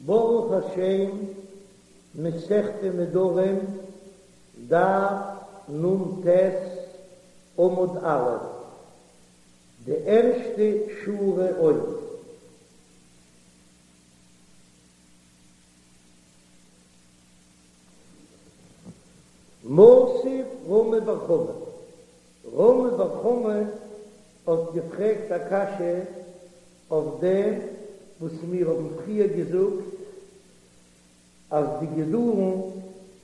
ברוך השם, מסכת נדרים, דף נ"ט, עמוד א', די ערשטע שורה אויבן. מתיב רמי בר חמא, רמי בר חמא האט געפרעגט א קשיא אויף דעם וואס מיר האבן פריער געזאגט אז די גידולין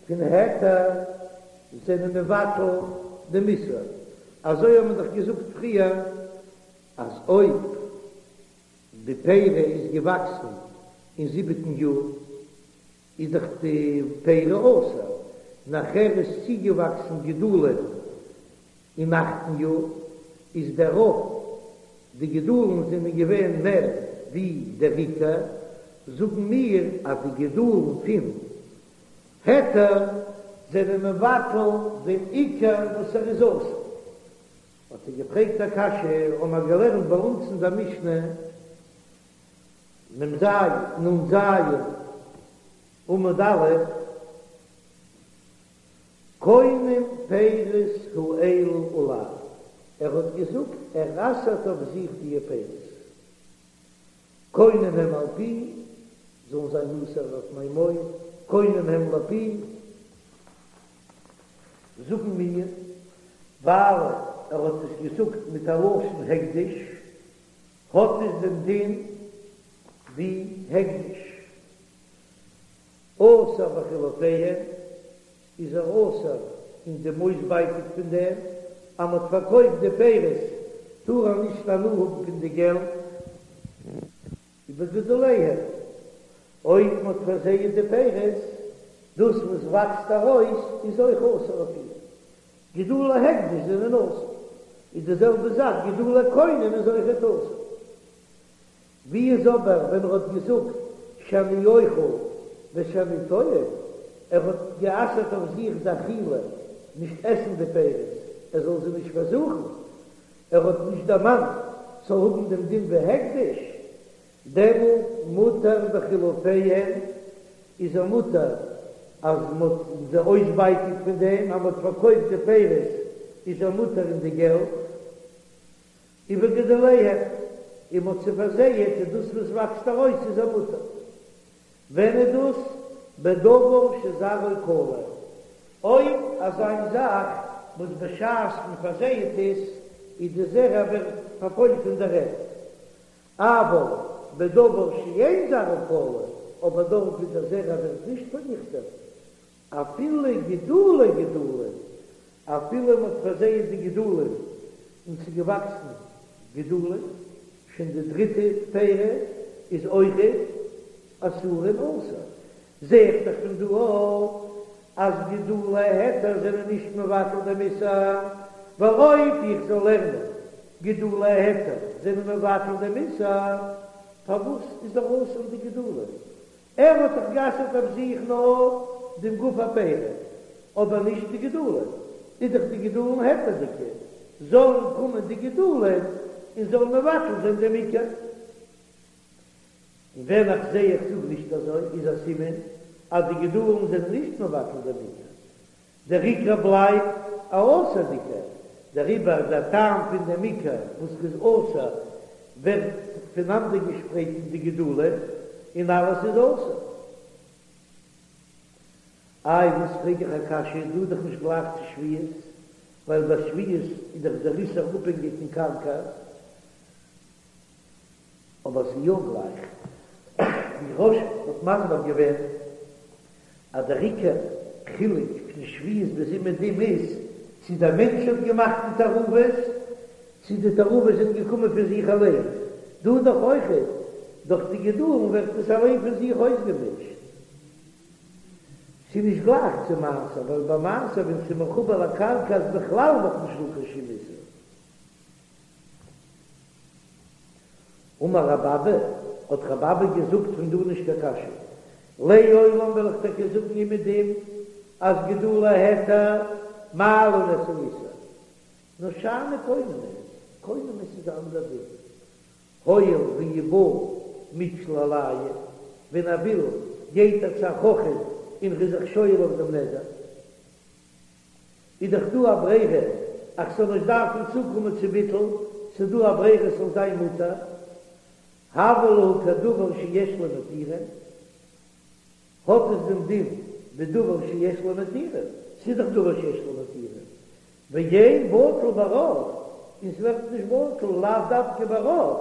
פון היתר זענען מבטל דעם איסור, אזוי האבן מיר דאך געזאגט פריער אז אויב די פרי איז געוואקסן אין זיבעטן יאר איז דאך די פרי אסור, נאכער איז צוגעוואקסן גידולין אין אכטן יאר, איז דער רוב די גידולין זענען געווען מער ווי דער עיקר, זאגן מיר אז די גידולין פון היתר זענען מבטל דעם עיקר וואס ער איז אסור. האט ער געפרעגט א קשיא, האבן מיר געלערנט ביי אונז אין דער משנה, מ"ז, נ"ז, עמוד א', קונם פירות האלו עלי, ער האט געזאגט ער אסר'ט אויף זיך דיע פירות, קונם הם על פי, זאלן זיין אסור אויף מיין מויל, קונם הם לפי, זאגן מיר, ווייל ער האט עס געזאגט מיט א לשון הקדש, האט עס דעם דין ווי הקדש. אסור בחילופיהן, איז ער אסור אין דעם אויסבייטיג פון דעם אז מ'האט פארקויפט די פירות טאר ער נישט הנאה האבן פון די געלט. ובגידוליהן, אויב מ'האט פארזייעט די פירות, דאס וואס וואקסט ארויס איז אויך אסור אויף אים. גידולי הקדש זענען אסור, איז די זעלבע זאך גידולי קונם איז אויכעט אסור. ווי איז אבער ווען ער האט געזאגט שאני אוכל ושאני טועם, ער האט גע'אסר'ט אויף זיך די אכילה, נישט עסן די פירות, ער זאל זיי נישט פארזוכן, ער האט נישט דערמאנט ס'זאל האבן דעם דין ווי הקדש, דעמאלט מותר בחילופיהן, איז ער מותר אז מ'האט זיי אויסבייטיג פון דעם אז מ'האט פארקויפט די פירות איז ער מותר אין די געלט. ובגידוליהן, און מ'האט זיי פארזייעט און דאס וואס וואקסט ארויס איז ער מותר. ווען איז דאס? בדבר שזרעו כלה, אויב אזא זאך וואס בשעת מ'פארזייעט עס איז די זרע ווערט פארפוילט אין דער ערד, אבל בדבר שאין זרעו כלה, אבער דארט ווי דער זרע ווערט נישט פארניכטעט, אפילו גידולי גידולין, אפילו מ'האט פארזייעט די גידולין און ס'איז געוואקסן גידולין, שוין די דריטע פרי איז אויכעט אסורין אסור. זע איך דאך פון דא אויך אז גידולי היתר זענען נישט מבטל דעם איסור, ווייל אויב איך זאל לערנען גידולי היתר זענען מבטל דעם איסור, פארוואס איז ער אסור די גידולין? ער האט דאך גע'אסר'ט אויף זיך נאר דעם גוף הפרי, אבער נישט די גידולין, איז דאך די גידולין היתר'דיגע, זאלן קומען די גידולין און זאלן מבטל זיין דעם עיקר. און ווען איך זע איך זאג נישט אזוי, איז א סימן אז די גידולין זענען נישט מבטל דעם עיקר, דער עיקר בלייבט א אסור'דיגער, דעריבער דער טעם פון דעם עיקר וואס איז אסור ווערט פונאנדערגעשפרייט אין די גידולין און אלעס איז אסור. איי וואס פרעג איך א קשיא, דא איז דאך נישט גלייך צו שביעית, ווייל ביי שביעית איז דאך דער איסור אפהענגיק אין קרקע, אבער ס'איז יא גלייך, ווי רא"ש האט מסביר געווען אז דער עיקר חילוק פון שביעית ביז אומעדום איז צו דער מענטש האט געמאכט די תערובות צו די תערובות זענען געקומען פון זיך אליין, דא דאך אויכעט דורך די גידולין ווערט עס אליין פון זיך אויסגעמישט. ס'איז נישט גלייך צו מעשר, ווייל ביי מעשר ווען ס'איז מחובר לקרקע איז בכלל נאך נישט דא קיין שום איסור. אמר רב אבא, האט רב אבא געזאגט פון דא נישט קיין קשיא, לעולם וועל איך טאקע זאגן אומעדום אז גידולי היתר מעלין את האיסור, נאר שאני קונמות, קונמות איז א אנדער דין, הואיל ואי בעי מיתשיל עלייהו. ווען ער וויל גייט ער צו א חכם און ר'איז זיך שואל אויף דעם נדר. איז דאך דא א ברירה אז כ'זאל נישט דארפן צוקומען צו ביטול, ס'איז דא א ברירה ס'זאל זיין מותר, הוה להו כדבר שיש לו מתירין, האט עס דעם דין ווי דבר שיש לו מתירין, ס'איז דאך דבר שיש לו מתירין, ואין בטל ברוב, און ס'ווערט נישט בטל לאו דווקא ברוב,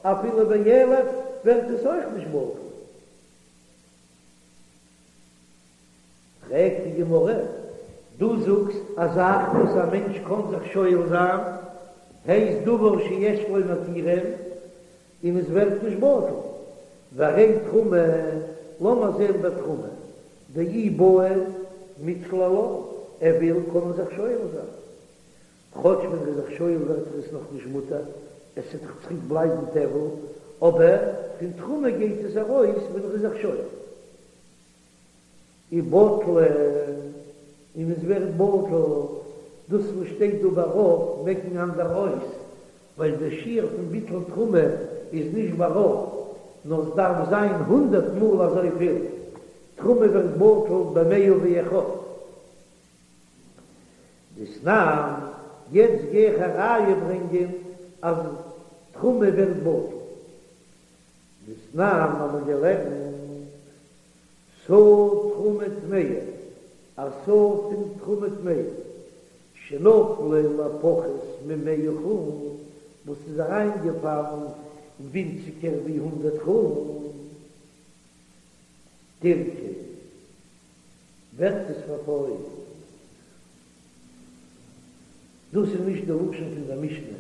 אפילו באלף ווערט עס אויך נישט בטל. פרעגט די גמרא, דו זאגסט א זאך וואס א מענטש קען זיך שואל זיין, הייסט דבר שיש לו מתירין, און עס ווערט נישט בטל, והרי תרומה, לאמיר זען ביי תרומה, דאי בעי מיתשיל עלה, ער וויל קען ער זיך שואל זיין, כאטש ווען ער איז זיך שואל ווערט עס נאך נישט מותר, עס וועט דאך צוריק בלייבן טבל, אבער פון תרומה גייט עס ארויס ווען ער איז זיך שואל. ובטלה, און עס ווערט בטל, דאס וואס שטייט דא ברוב מעקן אנדערע אויס, ווייל דער שיעור פון ביטול תרומה איז נישט ברוב, נאר עס דארף זיין הונדערט מאל אזויפיל, תרומה ווערט בטל במאה ואחד. דתנן, יעצט גיי איך א ראיה ברענגען אז תרומה ווערט בטל. דתנן האבן מיר געלערנט סאה תרומה טמאה, א סאה פון תרומה טמאה, שנפלה לפחות ממאה חולין, וואס איז אריינגעפאלן ווינציגער ווי הונדערט חולין, תרקב, ווערט עס פארפוילט. דאס איז נישט די לשון פון דער משנה,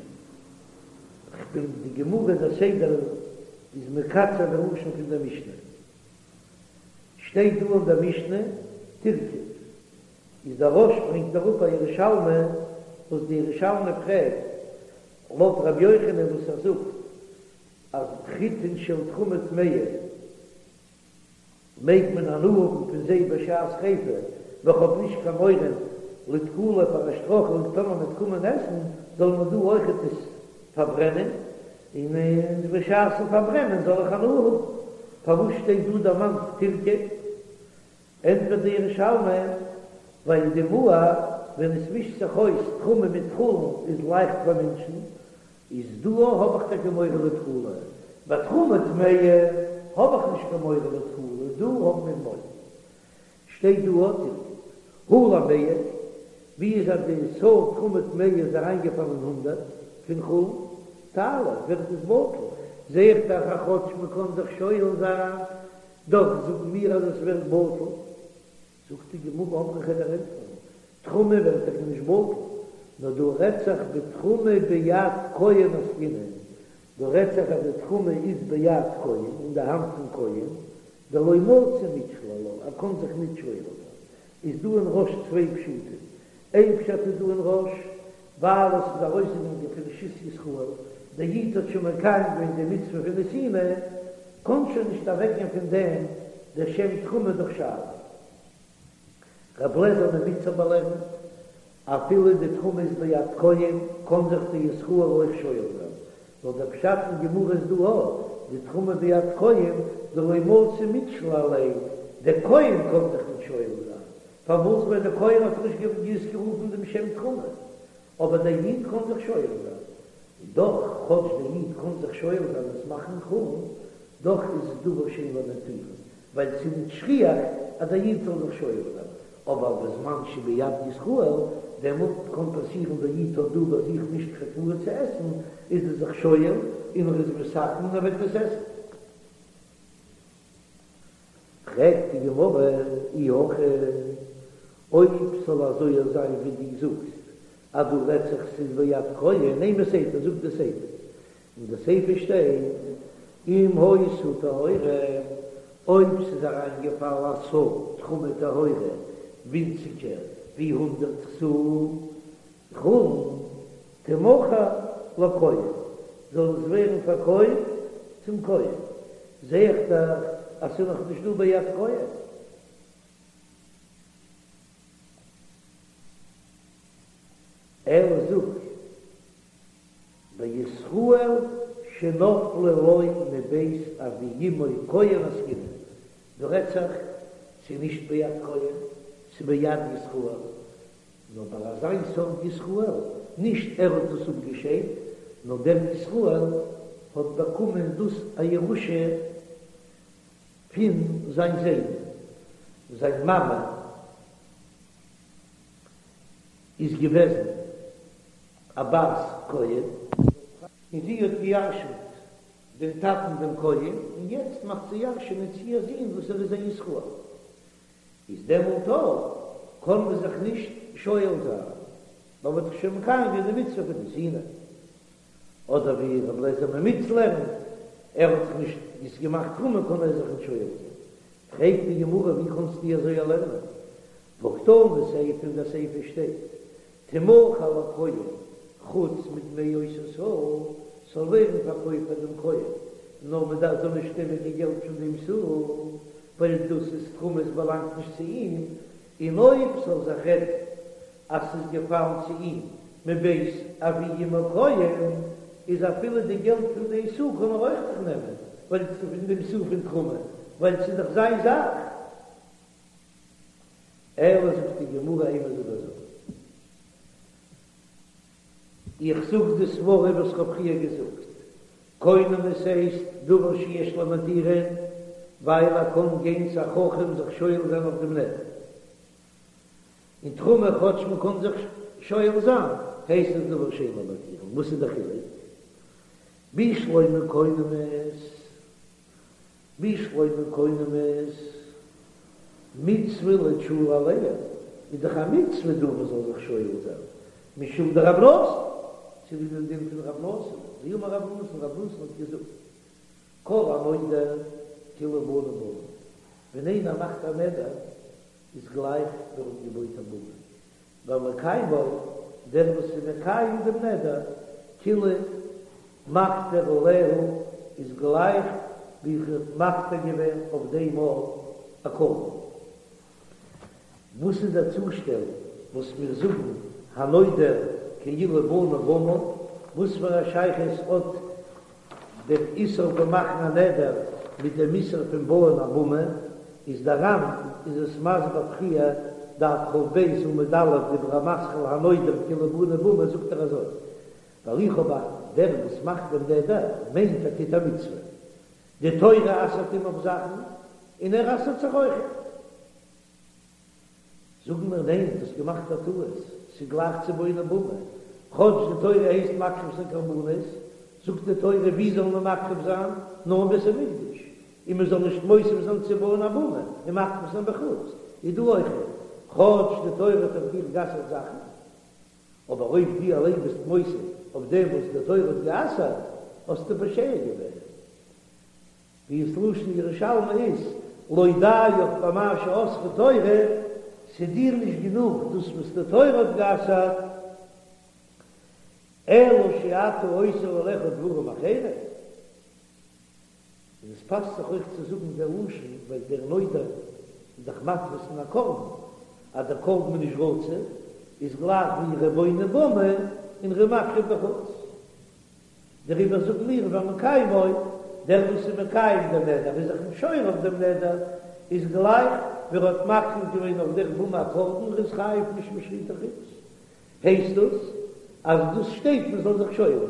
כ'בין די גמרא דער סדר איז מקצר די לשון פון דער משנה, שטייט דא אין דער משנה תרקב, איז דער רא"ש ברענגט אראפ א ירושלמי וואס די ירושלמי פרעגט לויט רבי יוחנן וואס ער זאגט אז חיטין של תרומה טמאה מעג מען הנאה האבן פון זיי בשעת שריפה, ווייל כ'האב נישט קיין מורא לתקלה פאר א שטרויכלונג טאמער מ'וועט קומען עסן, זאל מען דא אויכעט עס פארברענען, און בשעת'ן פארברענען זאל איך הנאה האבן. פארוואס שטייט דא דערמאנט תרקב? ענטפערט די ירושלמי, ווייל דימוע ווען עס מישט זיך אויס תרומה מיט חולין איז לייכט פאר מענטשן, איז דא האב איך טאקע מורא לתקלה, ביי תרומה טמאה האב איך נישט קיין מורא לתקלה, דא האבן מיר מורא. שטייט דא אט הא למאה, ווי איז אז די סאה תרומה טמאה איז אריינגעפאלן אין הונדערט פון חולין, תעלה, ווערט עס בטל, זעה איך דאך אז כאטש מען קען זיך שואל זיין, דאך זאגן מיר אז עס ווערט בטל. זאגט די גמרא אמרי כ'וועל דיר ענטפערן, תרומה ווערט טאקע נישט בטל, נאר דא רעדט זיך בתרומה ביד כהן עסקינן, דא רעדט זיך אז די תרומה איז ביד כהן, אין די האנט פון כהן, דלא מצי מיתשיל עלה, ער קען זיך ניט שואל זיין. איז דא אין רא"ש צוויי פשטים, איין פשט איז דא אין רא"ש, ווייל עס איז ארויסגעגאנגען פון רשות ישראל, דער איד האט שוין מקיים געווען די מצוה פון נתינה, קען שוין נישט אוועקגיין פון דעם דער שם תרומה דורך שאלה. רב לעזער ממיצר באלערנט, אפילו די תרומה איז ביד כהן, קען זיך די ישראל אויך שואל זיין, נאר דער פשט אין גמרא איז דא א, די תרומה ביד כהן דלא מצי מיתשיל עליה, דער כהן קען זיך נישט שואל זיין, פארוואס ווייל דער כהן האט נישט אויסגערופן דעם שם תרומה, אבער דער איד קען זיך שואל זיין, און דאך כאטש דער איד קען זיך שואל זיין עס מאכן חולין, דאך איז עס דבר שאין לו מתירין, ווייל ס'איז נישט שכיח אז דער איד זאל זיך שואל זיין, אבער בזמן שביד ישראל, דעמאלט קען פאסירן דער איד האט דא ביי זיך נישט קיין תבואה צו עסן, איז ער זיך שואל און ער איז מתקן און ער וועט עס עסן. פרעגט די גמרא, אי הכי, אויב ס'זאל אזוי זיין ווי דו זאגסט אז דא רעדט זיך ס'איז ביד כהן, אימא סיפא, זאג די סיפא, אין די סיפא שטייט אם היתה טהורה, אויב ס'איז אריינגעפאלן א סאה תרומה טהורה ווינציגער ווי הונדערט סאה חולין, תמכר לכהן, זאל עס ווערן פארקויפט צום כהן, זע איך דאך אז ס'איז נאך נישט דא ביד כהן. אלא זאג, בישראל שנפלה לו מבית אבי אמו כהן עסקינן. דא רעדט זיך ס'איז נישט ביד כהן, ס'איז ביד ישראל, נאר ביי אזיין סארט ישראל, נישט ער האט דאס אפגעשיידט, נאר דער ישראל האט באקומען דאס א ירושה פון זיין זיידן, זיין מאמע איז געוועזן א בת כהן, און זי האט געירשנט דעם טאטן דעם כהן, און יעצט מאכט זי ירשענען צו איר זון וואס ער איז א ישראל, איז דעמאלט אויך קען מען זיך נישט שואל זיין, ווייל מ'האט דאך שוין מקיים געווען די מצוה פון נתינה. אדער ווי רבי אליעזר ממיץ לערנט, ער האט דאך נישט עס געמאכט תרומה קען ער זיך נישט שואל זיין. פרעגט די גמרא ווי קענסטו אזוי לערנען? והא קתני סיפא אין דער סיפא שטייט תמכר לכהן חוץ מדמי אותו סאה, ס'זאל ווערן פארקויפט פאר דעם כהן, נאר מען דארף זאל נישט נעמען קיין געלט פון דעם סאה, ווייל דאס איז תרומה עס באלאנגט נישט צו אים, און אויב ס'זאל זיך רעדן אז ס'איז געפאלן צו אים מבית אבי אמו כהן, איז אפילו די געלט פון די סאה קען ער אויך זיך נעמען, ווייל ס'איז פון דעם סאה פון תרומה, ווייל ס'איז דאך זיין זאך. אלא זאגט די גמרא אימא זאג אזוי, איך זאג די סברא וואס כ'האב פריער געזאגט, קונמות הייסט דבר שיש לו מתירין, ווייל ער קען גיין צו א חכם זיך שואל זיין אויף דעם נדר, און תרומה כאטש מען קען זיך שואל זיין, הייסט עס דבר שאין לו מתירין, וואס איז די חילוק? בשלמא קונמות בשלמא קונמות מצוה לתשולי עליה, איז דאך א מצוה דא מען זאל זיך שואל זיין, משום דרב נתן, צוליב דעם דין פון רב נתן, דאמר רב נתן, רב נתן האט געזאגט, כל הנודר כאילו בנה במה, ווען איינער מאכט א נדר איז גלייך ווי ער האט געבויט א במה, והמקיימו, דער וואס איז מקיים דעם נדר, כאילו מקטיר עליה, איז גלייך ווי ער האט מקטיר געווען אויף דעם א קרבן. וואס איז דער צושטעל וואס מיר זאגן הנודר כאילו בנה במה? וואס פאר א שייכות האט דער איסור פון מאכן א נדר מיט דעם איסור פון בויען א במה? איז דער ר"ן איז עס מסביר פריער, דף כ"ב עמוד א', דיבור המתחיל הנודר כאילו בנה במה זאגט ער אזוי, ווייל איך האב א דער וואס מאכט דעם נדר מיינט ער טוט א מצוה, די תורה אסר'ט אים אויף זאכן און ער אסר'ט זיך אויכעט. זאגן מיר ניין, דו האסט געמאכט א טעות, ס'איז גלייך צו בונה במה, כאטש די תורה הייסט מקריב זיין קרבנות, זאגט די תורה ווי זאל מען מקריב זיין, נאר אין בית המקדש, און מען זאל נישט מוסיף זיין צו בויען א במה און מקריב זיין בחוץ, איז דא אויכעט, כאטש די תורה האט אויף דיר גע'אסר'ט זאכן, אבער אויב דו אליין ביסט מוסיף אויף דעם וואס די תורה האט גע'אסר'ט, האסטו פושע געווען. ווי עס לשון ירושלמי איז, לא דיך במה שאסרה תורה, ס'איז דיר נישט גענוג דאס וואס די תורה האט גע'אסר'ט, אלא שאתה אוסר עליך דברים אחרים. און עס פאסט זיך אויך צו זאגן דער לשון, ווייל דער נודר איז דאך מתפיס אין א קרבן, אז דער קרבן איז נישט רצוי, איז גלייך ווי ער איז בונה במה און ער איז מקריב בחוץ. דעריבער זאגן מיר והמקיימו, דער וואס איז מקיים דעם נדר איז זיך נישט שואל אויף דעם נדר, איז גלייך ווי ער האט מקריב געווען אויף דער במה א קרבן, ער איז חייב משום שחוטי חוץ. הייסט דאס אז דאס שטייט מען זאל זיך שואל זיין,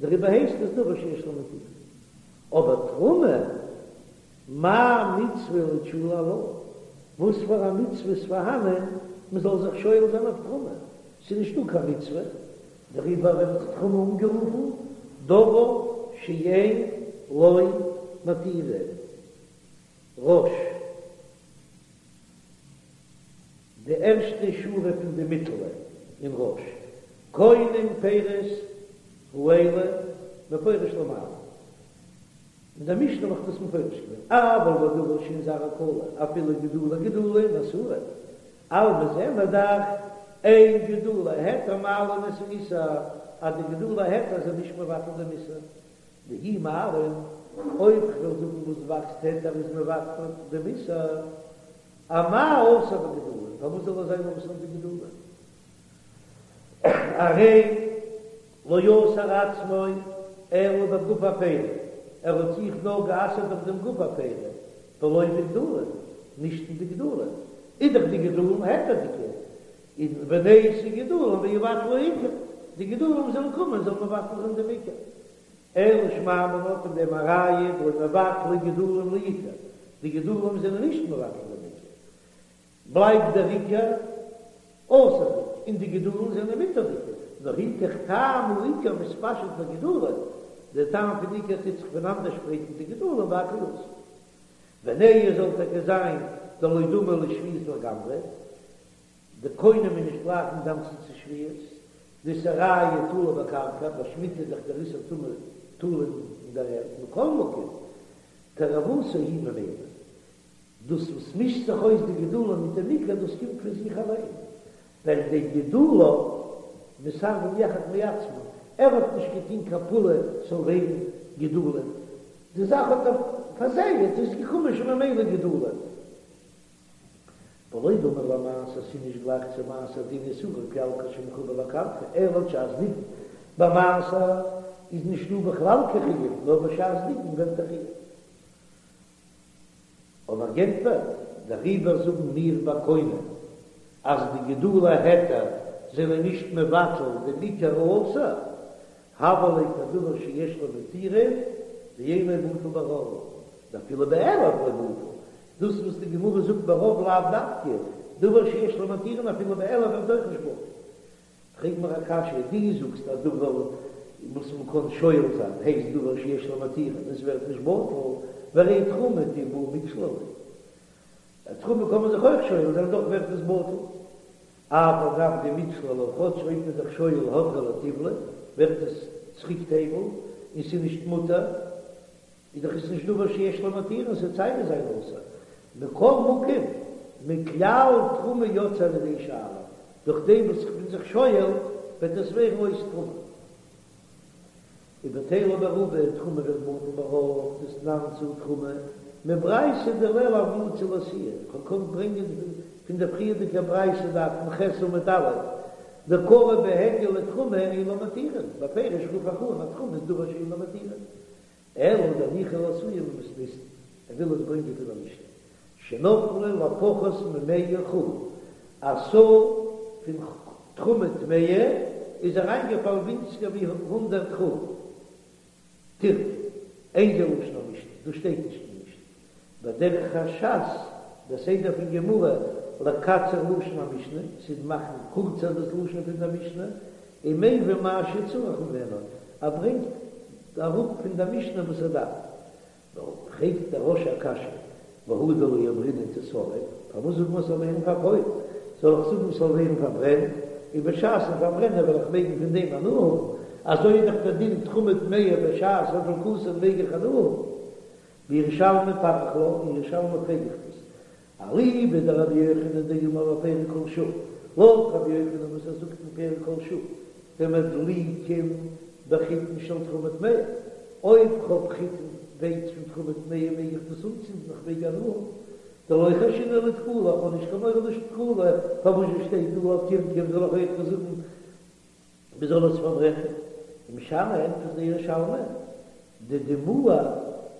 דעריבער הייסט עס דבר שיש לו מתירין. אבער תרומה, מאי מצוה לתשולי עלה? וואס פאר א מצוה איז פארהאנען מען זאל זיך שואל זיין אויף תרומה? ס'איז נישטא קיין מצוה, דעריבער ווערט תרומה אנגערופן דבר שאין לו מתירין. רא"ש, די ערשטע שורה פון די מיטעלע אין רא"ש, קונם פירות האלה מפורש למעלה. אין דער משנה האב איך דאס מפרש געווען, אבל בדבר שאין זרעו כלה, אפילו גידולי גידולין אסורין, אלמא זעען מיר דאך, אין גידולי היתר מעלין את האיסור, אז די גידולי היתר זענען נישט מבטל דעם איסור, דאי מעלין, אויב כ'וועל זאגן וואס וואקסט היתר איז מבטל דעם איסור, אמאי אסור בגידולין, פארוואס זאל ער זיין אסור אין די גידולין? הרי לא אסר עצמו אלא בגוף הפרי, ער האט זיך נאר גע'אסר'ט אויף דעם גוף הפרי. ולא בגדולין, נישט אין די גדולין, איז דאך די גדולין היתר'דיגע, און ונייתי גידולין ויבטלו עיקר, די גידולין זאלן קומען זאלן מבטל זיין דעם עיקר. אלא שמע מינה פון דעם א ראיה דלא מבטלי גידולין לעיקר, די גידולין זענען נישט מבטל דעם עיקר, בלייבט דער עיקר אסור'דיג און די גידולין זענען מותר'דיגע, נאר היכך טעם העיקר מתפשט בגידולין, דער טעם פון עיקר טוט זיך פונאנדערשפרייטן די גידולין והכל אסור. ונהי זאל טאקע זיין דלא דמי לשביעית לגמרי, די קונם איז נישט גלייך אינגאנצן צו שביעית, דאיסורייהו תלוי בקרקע, ביי שמיטה איז דאך דער איסור תמיד תלוי אין דער ערד, מכל מקום, תערובתו היא ממילא. דאס וואס מישט זיך אויס די גידולין מיט דעם עיקר, דאס קומט פון זיך אליין, ווייל דגידוליו מתערבין יחד מעצמן, ער האט נישט געטון קיין פעולה ס'זאל ווערן גידולין, די זאך האט ער פארזייט, איז געקומען שוין ממילא גידולין. ולא דמי למעשר, ס'איז נישט גלייך צו מעשר דאין איסורו כלל כשמחובר לקרקע, אלא בשעת דיגון, ביי מעשר איז נישט דא בכלל קיין חיוב, נאר בשעת דיגון ווערט א חיוב. אבער גענטפערט, דעריבער זאגן מיר ביי קונם אז די גידולי היתר זענען נישט מבטל דעם עיקר האסור, הוה ליה כדבר שיש לו מתירין ואינו בטל ברוב, דאפילו באלף לא בטל, דאס וואס די גמרא זאגט ברוב לאו דווקא, דבר שיש לו מתירין אפילו באלף ווערט אויך נישט בטל. פרעג מיר א קשיא, דו זאגסט אז דבר וואס מען קען שואל זיין הייסט דבר שיש לו מתירין און עס ווערט נישט בטל, והרי תרומה דאי בעי מיקשלא ליה, תרומה קען מען זיך אויך שואל זיין דאך ווערט עס בטל, אף על גב דמיקשלא לה, כאטש אויב מען איז זיך שואל הדרא לטיבלא ווערט עס צוריק טבל און ס'איז נישט מותר. איז דאך עס נישט דבר שיש לו מתירין, ס'וועט סיי ווי זיין אסור. מכל מקום, מכלל תרומה יוצא על ידי שאלה, דורך דעם וואס איך בין זיך שואל, וועט עס ווערן אויס תרומה. ובטלה ברובא, תרומה ווערט בטל ברוב, דתנן סאה תרומה, מברייתא דלעיל הוה מצי לאתויי, כ'האב געקאנט ברענגען פון דער פריערדיגער ברייתא דף נ"ח עמוד א', דקרי בהדיא לתרומה אין לה מתירין, בפירוש רוף איך אן אז תרומה איז דבר שאין לו מתירין. אלא דניחא לאתויי ממתניתין, ער וויל עס ברענגען פון א משנה, שנפלו לפחות ממאה חולין, א סאה פון תרומה טמאה איז אריינגעפאלן ווינציגער ווי הונדרעט חולין, תרקב, אין זה לשון המשנה, דאס שטייט נישט אין משנה, ודרך הש"ס, דער סדר פון גמרא, לקצר לשון המשנה, צו מאכן קורצער דאס לשון פון דער משנה, ומביא מה שצריך ממנו, ער ברענגט אראפ פון דער משנה וואס ער דארף. פרעגט דער רא"ש א קשיא, והא דלא אמרינן תשרף, פארוואס זאגט מען ס'זאל ווערן פארפוילט? זאל איך זאגן ס'זאל ווערן פארברענט, און בשעת'ן פארברענען וועל איך מעגן פון דעם הנאה האבן, אזוי איז דאך דער דין תרומה טמאה בשעת הדלקתן מעג איך הנאה האבן. בירושלמי פריך לה, אין ירושלמי פרעג איך דאס, אליבא דרבי יוחנן דאמר בפרק כל שעה, לויט רבי יוחנן וואס ער זאגט אין פרק כל שעה, דמדליקין בחיטין של תרומה טמאה, אויב כ'האב חיטין ווייץ פון תרומה טמאה מעג איך דאס אנצינדן איך מעג הנאה האבן, דלא חיישינן לתקלה, איך האב נישט קיין מורא לתקלה, פארוואס שטייט דא אויף תרקב זאל איך אויך זאגן מען זאל עס פארברענען, ומשני ענטפערט דער ירושלמי, דדימוע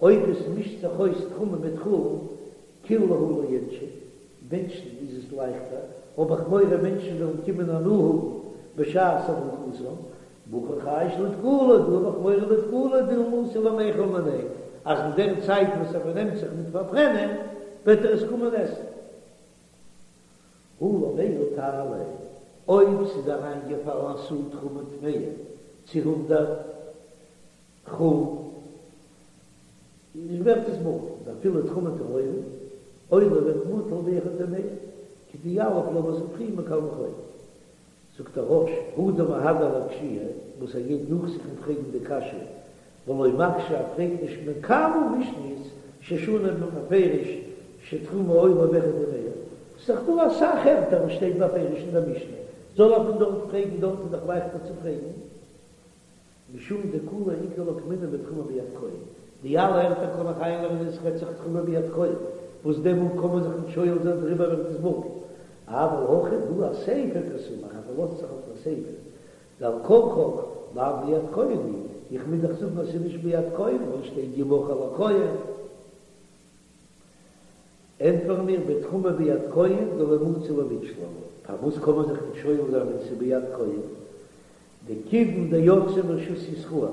אויב עס מישט זיך אויס תרומה מיט חולין, קיל להו לאינשי, מענטשן איז עס לייכטער, האב איך מורא מענטשן וועלן קומען הנאה האבן בשעת הדלקתן, והכא חייש לתקלה, דא האב איך מורא לתקלה דילמא אתי למיכל מיניה, אז אין דער צייט וואס ער פארנעמט זיך מיט פארברענען וועט ער עס קומען עסן. הא למאה תעלה, אויב ס'איז אריינגעפאלן א סאה תרומה טמאה צו הונדרעט חולין, איז ווערט עס בטל, דאפילו תרומה טהורה, עולה ווערט בטל באחד ומאה, כדיליף לאמיר זאגן פריער מקל וחומר. זאגט דער רא"ש, הא דמהדר לאקשויי, וואס ער גייט נאך זיך און פרעגן די קשיא, ולא מקשה ער פרעגט נישט מכמה משניות ששנו בהן בפירוש שתרומה עולה באחד ומאה, ס'איז דאך דא אסאך ערטער וואס שטייט בפירוש אין דער משנה, זאל ער פון דארט פרעגן, דארט איז דאך לייכטער צו פרעגן. משום דכולהו איכא לאוקמינהו בתרומה ביד כהן, די אלע ערטער קען איך איינלערנען עס רעדט זיך תרומה ביד כהן, וואס דעמאלט קען מען זיך נישט שואל זיין דעריבער ווערט עס בטל. אבל הכא דא אסיפא קסמיך, ער פארלאזט זיך אויף דער סיפא, דעל כרחך לאו ביד כהן היא, איך מוז דאך זאגן אז ס'איז נישט ביד כהן ווייל עס שטייט ימכר לכהן. ענטפערן מיר בתרומה ביד כהן דלא מצי למיתשל עלה, פארוואס קען מען זיך נישט שואל זיין ווען ס'איז ביד כהן? דכיון דיצא מרשות ישראל,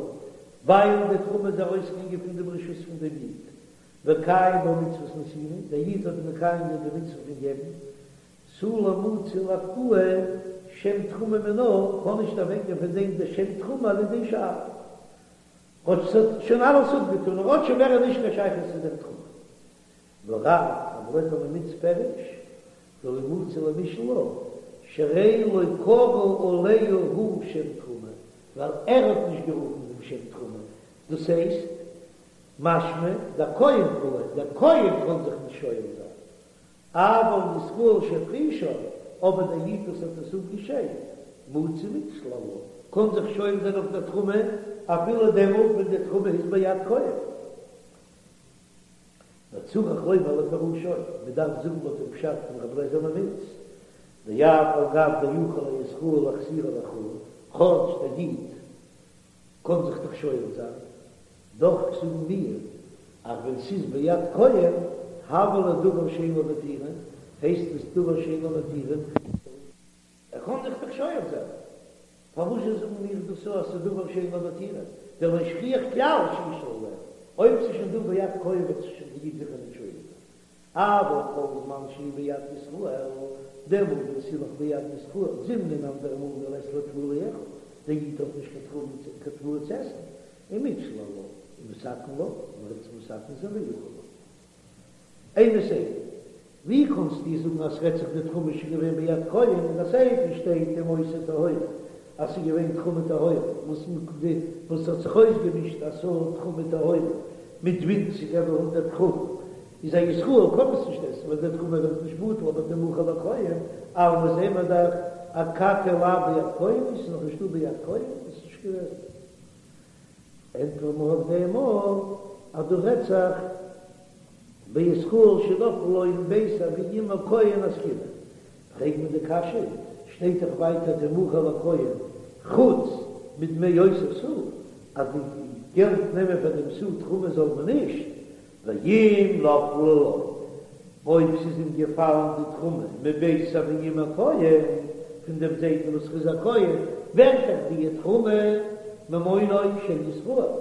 ווייל די תרומה איז ארויסגעגאנגען פון דעם רשות פון דעם איד, וקיים בה מצות נתינה, דער איד האט מקיים געווען די מצוה פון געבן, תו לא מצי לאפקועי שם תרומה מינה, קען נישט אוועקגיין פון דעם די שם תרומה על ידי שאלה. כאטש ס'האט שוין אלעס אפגעטון, ער האט שוין מער נישט קיין שייכות צו דער תרומה. ורב, רבי אליעזר ממיץ פירש, דלא מצי למישאל לה, שהרי לא קרא עליה הוא שם תרומה, ווייל ער האט נישט גערופן דעם שם תרומה, דאס הייסט, משמע, דער כהן קאי, דער כהן קען זיך נישט שואל זיין, אבל ישראל שהפרישה, אבער דער איד וואס האט עס אפגעשיידט, מצי מיתשיל עלה, קען זיך שואל זיין אויף דער תרומה אפילו דעמאלט ווען די תרומה איז ביד כהן. וצריך לומר לפירושו, מען דארף זאגן לויט דעם פשט פון רבי אליעזר ממיץ, דאף על גב דיכול הישראל להחזירה לחולין, כאטש דער איד קען זיך דאך שואל זיין, דאך זאגן מיר אז ווען ס'איז ביד כהן, הוה ליה דבר שאין לו מתירין, הייסט עס דבר שאין לו מתירין, ער קען זיך דאך שואל זיין, פארוואס זשע זאגן מיר דאס אז ס'איז דבר שאין לו מתירין, דלא שכיח כלל שישאל עליה, אויב ס'איז שוין דא ביד כהן וועט זיך שוין די איד זיכער נישט שואל זיין, אבל כל זמן שהיא ביד ישראל, דעמאלט ווען ס'איז נאך ביד ישראל, זימנין אנדערע מאל דלית ליה תבואה ליכול, דער איד האט נישט קיין תבואה צו עסן, ומיתשיל עלה, ומתקן לה, און ער וועט עס מתקן זיין ואכיל לה. אימא סיפא, ווי קאנסטו זאגן אז ס'רעדט זיך די תרומה איז שוין געווען ביד כהן אין די סיפא שטייט אם היתה טהורה אז ס'איז געווען תרומה טהורה וואס וואס האט זיך אויסגעמישט א סאה תרומה טהורה מיט ווינציגער ווי הונדרעט גראם איז א ישראל קען עס נישט עסן ווייל די תרומה ווערט נישט בטל אבער תמכר לכהן אלמא זעהן מיר דאך אכתי לאו ביד כהן איז נאך נישט דא ביד כהן איז נישט געוועזן. ענטפערט מען אויף דעם אויך אז דא רעדט זיך בישראל שנפלה לו מבית אבי אמו כהן עסקינן. פרעגט מען די קשיא, שטייט דאך ווייטער תמכר לכהן חוץ מדמי אותה סאה, אז די געלט נעמען פאר דעם סאה תרומה זאל מען נישט, ואם נפלה לו, אויב ס'איז אים געפאלן די תרומה מבית אבי אמו כהן, פון דעם זיידן וואס איז א כהן, ווערט דאך די תרומה ממונו של ישראל,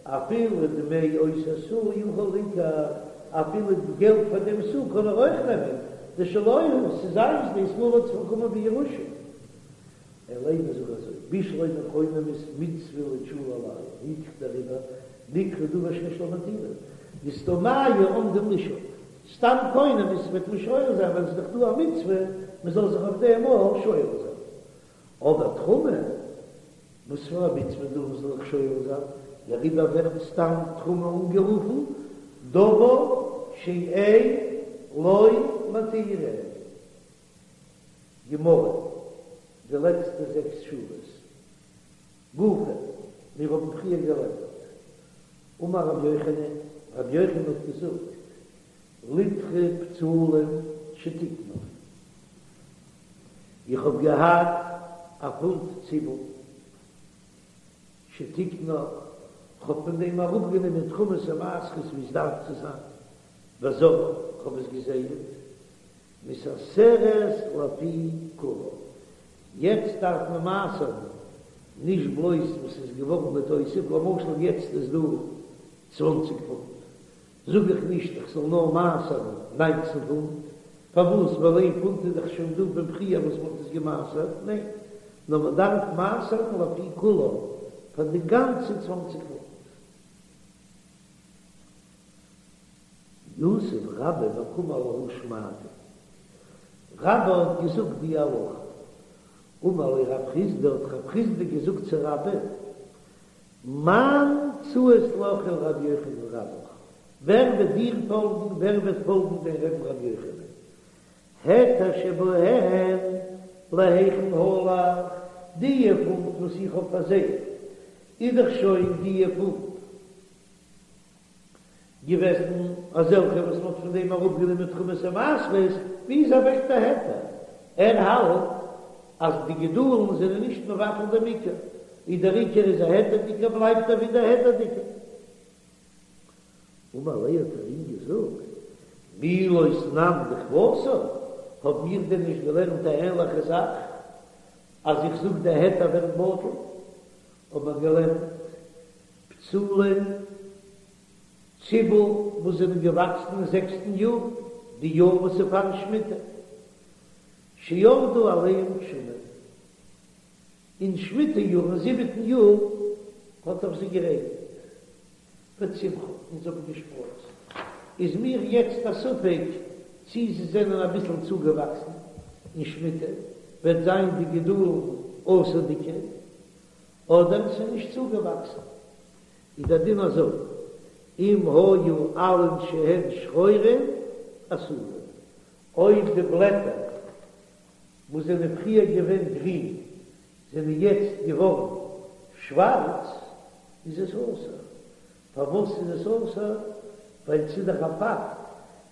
אפילו דמי אותה סאה יכול ליקח, אפילו די געלט פאר דעם סאה קען ער אויך נעמען, דשלו הוא, ס'איז זיינס, די ישראל האט עס באקומען בירושה. אלא אימא זאג אזוי, בשלמא קונמות מצוה לאיתשולי עלייהו, הילכך דעריבער נקרא דבר שיש לו מתירין, דסתמייהו עומדים לשאול, סתם קונמות וועט מען שואל זיין ווייל עס איז דאך דא א מצוה מען זאל זיך אויף דעם אויך שואל זיין, אבער תרומה, וואס פאר א מצוה דא מען זאל זיך שואל זיין, דעריבער ווערט סתם תרומה אנגערופן דבר שאין לו מתירין. גמרא, די לעצטע זעקס שורות. גופא, מיר האבן פריער געלערנט. אמר רבי יוחנן, רבי יוחנן האט געזאגט, ליטרא בצלים שתיקנה, איך האב געהאט א פונט ציבל שתיקנה, כ'האב פון דעם אראפגענומען תרומות ומעשרות ווי עס דארף צו זיין, וזרעה, כ'האב עס געזייעט, מתעשרת לפי כולה. יעצט דארף מען מעשר'ן נישט בלויז וואס איז געווארן בתוסף, למשל יעצט איז דא צוואנציג פונט, זאג איך נישט איך זאל נאר מעשר'ן ניינצן פונט, פארוואס ווייל איין פונט איז דאך שוין דא פון פריער וואס מען האט עס געמעשר'ט, ניין, נאר מען דארף מעשר'ן לפי כולה פאר די גאנצע צוואנציג פונט. יתיב רבה וקאמר להא שמעתא, רבה האט געזאגט די הלכה, אמר ליה רב חסדא, האט רב חסדא געזאגט צו רבה, מאן ציית לך ולרבי יוחנן רבך, ווער וועט דיר פאלגן, ווער וועט פאלגן דיין רבי'ן רבי יוחנן, היתר שבהן להיכן הלך, די פונט וואס איך האב פארזייט, איז דאך שוין די פונט. געוועזן אזעלכע וואס מ'האט פון דעם אראפגענומען תרומות ומעשרות, ווי איז אוועק דער היתר? ער האלט אז די גידולין זענען נישט מבטל דעם עיקר, און דער עיקר איז א היתר'דיגער בלייבט ער ווידער היתר'דיגער. אמר ליה האט ער אים געזאגט, מי לא תנן דכוותה, האב מיר דען נישט געלערנט א ענליכע זאך, אז איך זאג די היתר ווערט בטל, האב מיר געלערנט בצלים ציבל וואס זענען געוואקסן אין זעקסטן יאר, די יאר וואס איז פארן שמיטה, שירדו עליהם גשמים, אין שמיטה יאר אין זיבעטן יאר האט אויף זיי גערעגנט וצמחו און זיי האבן געשפראצט, איז מיר יעצט א ספק צי זיי זענען אביסל צוגעוואקסן אין שמיטה וועט זיין די גידולין אסור'דיגע אדער ס'איז נישט צוגעוואקסן, איז דער דין אזוי, אם היו עלין שהן שחורין אסורין, אויב די בלעטער וואס זענען פריער געווען גרין זענען יעצט געווארן שווארץ, איז עס אסור. פארוואס איז עס אסור? ווייל ס'איז דאך א פאקט,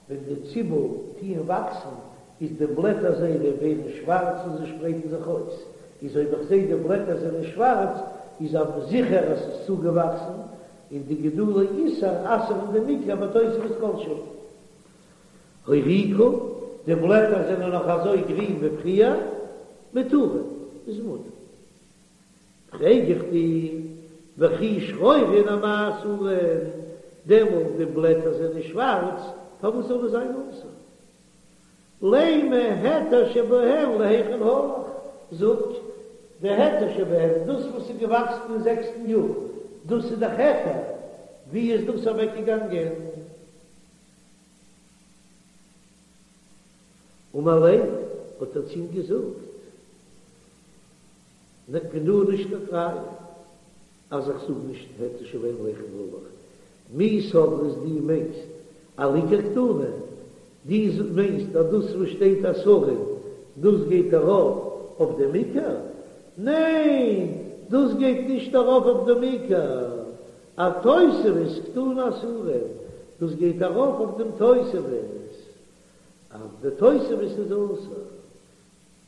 ווען די ציבל טוען וואקסן איז די בלעטער זייערע ווערן שווארץ און זיי שפרייטן זיך אויס, איז אויב איך זעה די בלעטער זענען שווארץ איז אויף זיכער אז ס'איז צוגעוואקסן, און די גידולי איסור אסר'ן דעם עיקר בתוספת כל שהוא. הוריקו, די בלעטער זענען נאך אזוי גרין ווי פריער, מותרין, איז מותר. פרעג איך דיר, וכי שחורין אמאי אסורין, דעמאלט די בלעטער זענען שווארץ, פארוואס זאל עס זיין אסור? לימא היתר שבהן להיכן הלך, זאג, די היתר שבהן, דאס וואס איז געוואקסן אין זעקסטן יאר, דאס איז דאך היתר, ווי איז דאס אוועקגעגאנגען? אמר ליה, האט ער צו אים געזאגט, פון דא נישט קיין ראיה אז איך זאג נישט היתר שבהן להיכן הלך, מי סברת דו מיינסט על עיקר קתני, דו מיינסט אז דאס וואס שטייט אסורין דאס גייט ארויף אויף דעם עיקר? ניין, דאס גייט נישט ארויף אויף דעם עיקר, אתוספת קתני אסורין, דאס גייט ארויף אויף דעם תוספת, אז די תוספת איז אסור,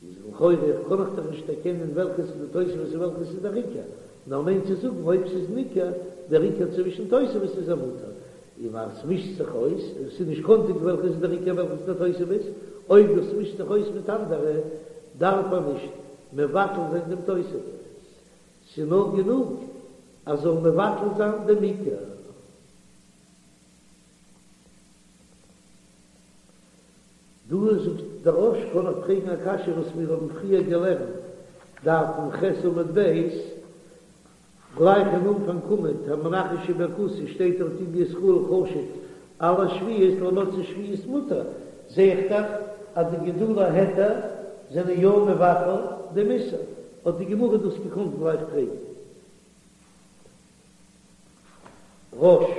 איז לכאורה קען איך דאך נישט דערקענען וועלכעס איז די תוספת און וועלכעס איז דער עיקר, נאר מיינט צו זאגן אויב ס'איז ניכר דער עיקר צווישן תוספת איז ער מותר, און אז ס'מישט זיך אויס, און ס'איז נישט קאנטיג וועלכעס איז דער עיקר וועלכעס איז דער תוספת, אויב דאס מישט זיך אויס מיט אנדערע, דארף מען נישט מבטל זיין דעם תוספת. ס'איז נאר גענוג אז זאל מבטל זיין דעם עיקר. דא זאגט דער רא"ש קען איך פרעגן א קשיא וואס מיר האבן פריער געלערנט, דף מ"ח עמוד ב', גלייך אין אנפאנג עמוד, המנכש שבכתית שטייט דארט אם בישראל חשוד על השביעית למוצאי שביעית מותר, זע איך דאך אז די גידולי היתר זענען יא מבטל דעם איסור, האט די גמרא דאס געקאנט גלייך פרעגן. רא"ש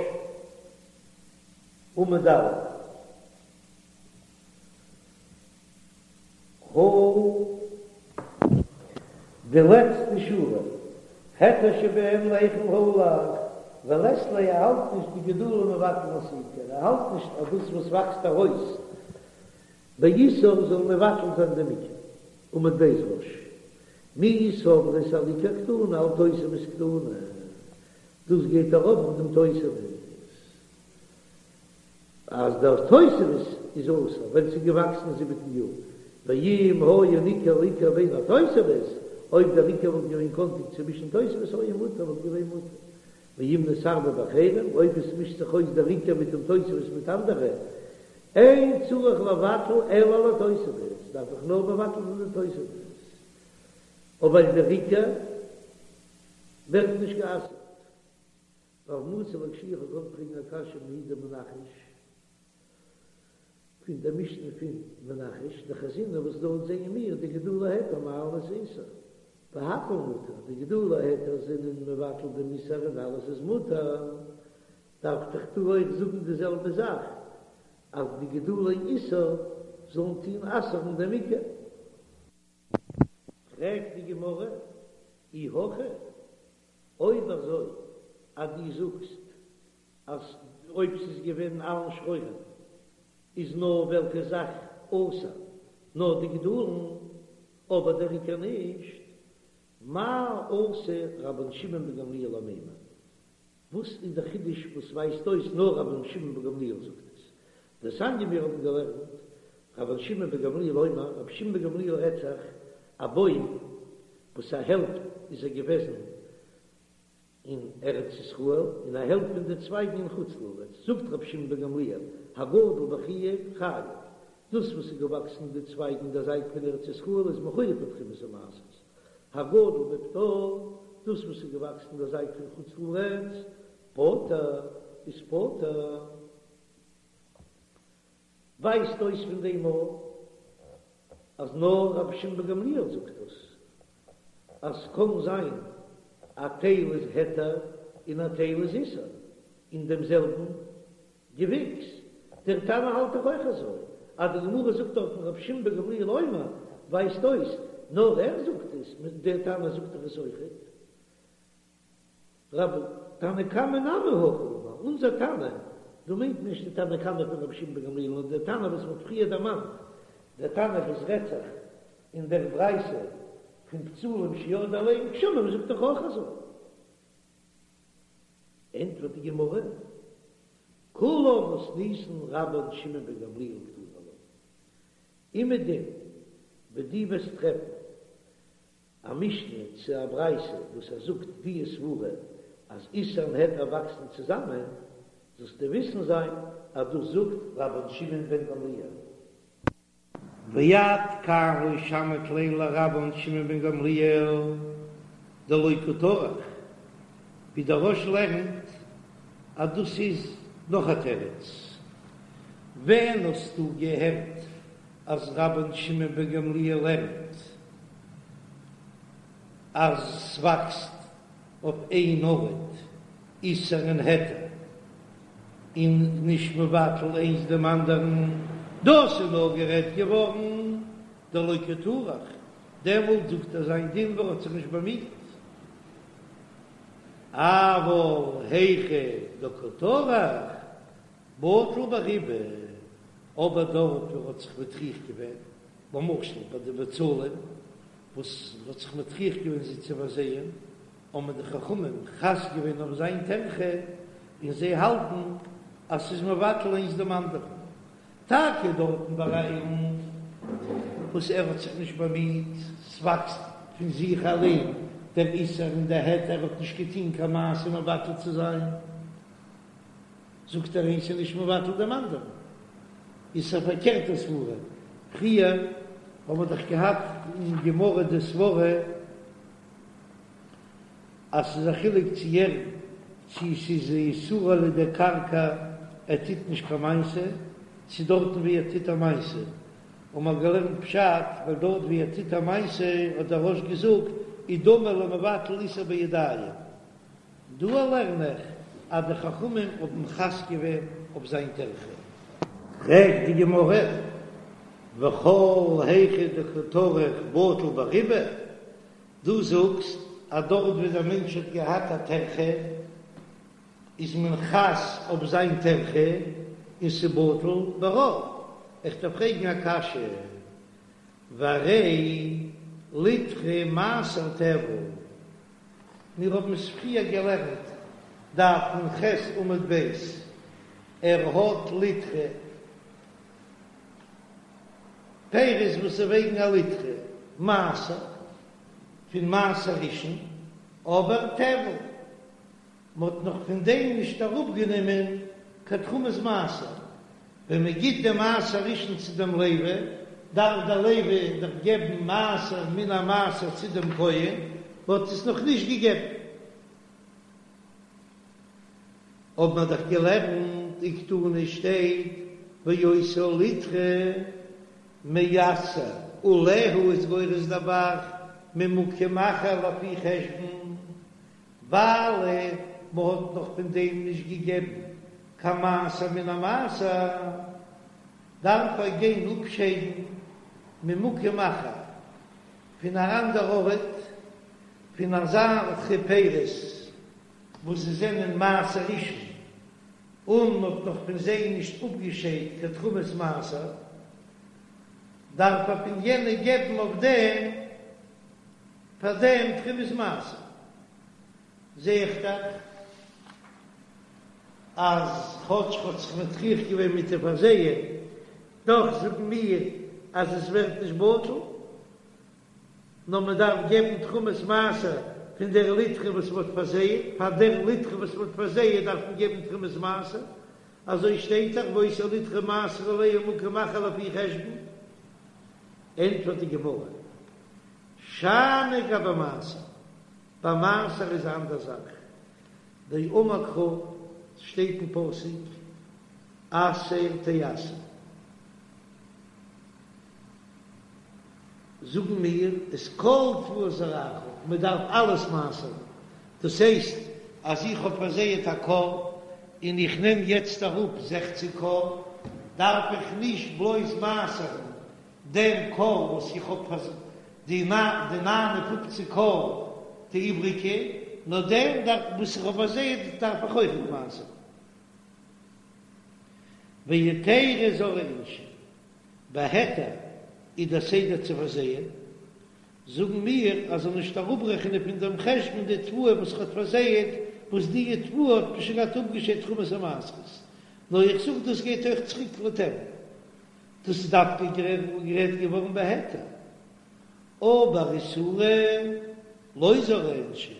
עמוד א'. הא. די לעצטע שורה, היתר שבהן להיכן הלך, ולית ליה ער האלט נישט דגידולין מבטלין את העיקר, ער האלט נישט אז דאס וואס וואקסט ארויס באיסור זאל מבטל זיין דעם עיקר. עמוד ב' רא"ש, מי סברת על עיקר קתני על תוספת קתני, דאס גייט ארויף אויף דעם תוספת. אז דער תוספת איז אסור ווען ס'איז געוואקסן אין זיבעטן יאר, ואם היה ניכר עיקר בין התוספת, אויב דער עיקר וואלט געווען קאנטיג צווישן תוספת היה מותר וואלט געווען מותר, ואם נתערבב באחרים, אויב עס מישט זיך אויס דער עיקר מיט דעם תוספת מיט אנדערע, אין צריך לבטל אלא על התוספת, דארף איך נאר מבטל זיין די תוספת, אבער דער עיקר ווערט נישט גע'אסר'ט. רב מצי לאקשויי איך האב געוואלט פרעגן א קשיא מההיא דמנכש פון דער משנה פון מנכש דחזינן וואס דארט זעען מיר דגידולי היתר מעלין את האיסור והכל מותר די גידולי היתר זענען מבטל דעם איסור און אלעס איז מותר דארף איך דא אויך זאגן די זעלבע זאך אז די גידולי איסור זאלן טוהן אסר'ן דעם עיקר. פרעגט די גמרא אי הכי אויב אזוי אז דו זאגסט אז אויב ס'איז געווען עלין שחורים איז נאר וועלכע זאך אסור נאר די גידולין אבער דער עיקר נישט, מה אתא רבן שמעון בן גמליאל למימר? וואס איז דער חידוש וואס ווייזט אויס נאר רבן שמעון בן גמליאל זאגט עס? דתניא מיר האבן געלערנט, רבן שמעון בן גמליאל אומר, רבי שמעון בן גמליאל רעדט זיך, א בוים וואס א העלפט איז ער געוועזן אין ארץ ישראל און א העלפט פון די צווייגן אין חוץ לארץ, זאגט רבי שמעון בן גמליאל, הגדל בחיוב חייב, דאס וואס איז געוואקסן די צווייגן אין דער זייט פון ארץ ישראל איז מחויב פון תרומת ומעשרות, הגדל בפטור, דאס וואס איז געוואקסן אין דער זייט פון חוץ לארץ, פטור, איז פטור. ווייזט אויס פון דעם אויך אז נאר רבי שמעון בן גמליאל זאגט דאס, אז ס'קען זיין א טייל איז היתר און א טייל איז איסור אין דעם זעלבן געוויקס. דער תנא האלט דאך אויך אזוי, אז די גמרא זאגט דארטן רבי שמעון בן גמליאל אומר, ווייזט אויס נאר ער זאגט עס, דער תנא זאגט דאך עס אויכעט. רבי תנא קמא נמי הכי אמר, אונזער תנא, דא מיינט נישט די תנא קמא פון רבי שמעון בן גמליאל נאר דער תנא וואס מ'האט פריער דערמאנט, דער תנא וואס רעדט זיך אין דער ברייתא פון בצלים שירדו עליהם גשמים זאגט דאך אויך אזוי. ענטפערט די גמרא, כולה מתניתין רבן שמעון בן גמליאל קתני לה, אומעדום וואו דו וועסט טרעפן א משנה צו א ברייתא וואס ער זאגט די סברה אז איסור און היתר וואקסן צוזאמען, זאלסטו וויסן זיין אז דאס זאגט רבן שמעון בן גמליאל. ועד כאן לא שמעת ליה לרבן שמעון בן גמליאל דלא קא טרח, ווי דער רא"ש לערנט אז דאס איז נאך א תירוץ, ווען האסטו געהערט אז רבן שמעון בן גמליאל לערנט אז ס'וואקסט אויף איין ארט איסור און היתר און נישט מבטל איינס דעם אנדערן, דאס איז נאר גערעדט געווארן דלא קא טרח, דעמאלט זאגט ער זיין דין וואו ער האט זיך נישט באמיט, אבל היכא דקא טרח בטל ברובא, אבער דארט וואו ער האט זיך מטריח געווען, למשל ביי די בצלים וואס מ'האט זיך מטריח געווען זיי צו פארזייען, האבן די חכמים חס געווען אויף זיין טרחה, און זיי האלטן אז ס'איז מבטל איינס דעם אנדערן. טאקע דארטן ביי א אילן וואס ער האט זיך נישט באמיט, ס'וואקסט פון זיך אליין דער איסור און דער היתר, ער האט נישט געטון קיין מעשה מבטל צו זיין. זאגט ער איינס איז נישט מבטל דעם אנדערן, איז א פארקערטע סברה, פריער האבן מיר דאך געהאט אין גמרא די סברה אז ס'איז א חילוק צו ער צו ס'איז איסורה על ידי קרקע ער טוט נישט קיין מעשה, צו דארטן ווי ער טוט א מעשה, האבן מיר געלערנט פשט ווייל דארט ווי ער טוט א מעשה האט דער רא"ש געזאגט איז דומה למבטל איסור בידיים. דא לערן איך אז די חכמים האבן חס געווען אויף זיין טרחה. פרעגט די גמרא, וכל היכא דקא טרח בטיל ברובא, דו זאגסט אז דארט ווי דער מענטש האט געהאט א טרחה איז מען חס אויף זיין טרחה און ס'בטל ברוב, איך דארף פרעגן א קשיא, והרי ליטרא מעשר טבל, מיר האבן עס פריער געלערנט, דף נ"ח עמוד ב', ער האט ליטרא פירות וואס וועגן א ליטרא מעשר פון מעשר ראשון, אבער טבל, מען האט נאך פון דעם נישט אראפגענומען קיין תרומת מעשר, ווען מען גיט דעם מעשר ראשון צו דעם לוי, דארף דער לוי דאך געבן מעשר מן המעשר צו דעם כהן, מען האט עס נאך נישט געגעבן. האבן מיר דאך געלערנט וקתני שטייט ואותה ליטרא מעשר עליה איז גורס דער ב"ח ממקום אחר לפי חשבון, ווייל מען האט נאך פון דעם נישט געגעבן קיין מעשר מן המעשר, דארף ער גיין אפשיידן ממקום אחר, פון אן אנדער ארט, פון אזעלכע פירות וואס זיי זענען מעשר ראשון, און מען האט נאך פון זיי נישט אפגעשיידט קיין תרומת מעשר, דארף ער פון יענע געבן אויף דעם פאר דעם תרומת מעשר. זע איך דאך. אז כאטש מ'האט זיך מטריח געווען מיט די פארזייען, דאך זאגן מיר אז עס ווערט נישט בטל, נאר מען דארף געבן תרומת מעשר פון דער ליטרא וואס מען האט פארזייעט, פאר דער ליטרא וואס מען האט פארזייעט דארף מען געבן תרומת מעשר, אזוי שטייט דאך והיתה ליטרא מעשר עליה ממקום אחר לפי חשבון. ענטפערט די גמרא, שאני גבי מעשר, ביי מעשר איז א אנדער זאך, דאמר קרא, שטייט אין פסוק עשר תעשר, זאגן מיר את כל תבואת זרעך, מען דארף אלעס מעשר'ן, דאס הייסט אז איך האב פארזייעט א כור און איך נעם יעצט אראפ זעכציק כור, דארף איך נישט בלויז מעשר'ן דעם כור וואס איך האב פארזייט, די 59 כור די איבריגע, נאר דעם וואס איך האב פארזייעט דארף איך אויכעט מעשר'ן. והיתרא זרעי אינשי, בהיתר איז דער סדר צו פארזייען, זאגן מיר אז זאל נישט אראפרעכענען פון דעם חשבון די תבואה וואס ער האט פארזייעט, וואס די תבואה האט מען שוין געהאט אפגעשיידט תרומת המעשרות, נאר איך זאג דאס גייט אויך צוריק לטבל, דאס איז דווקא גערעדט געווארן בהיתר, אבער איסורא לא זרעי אינשי.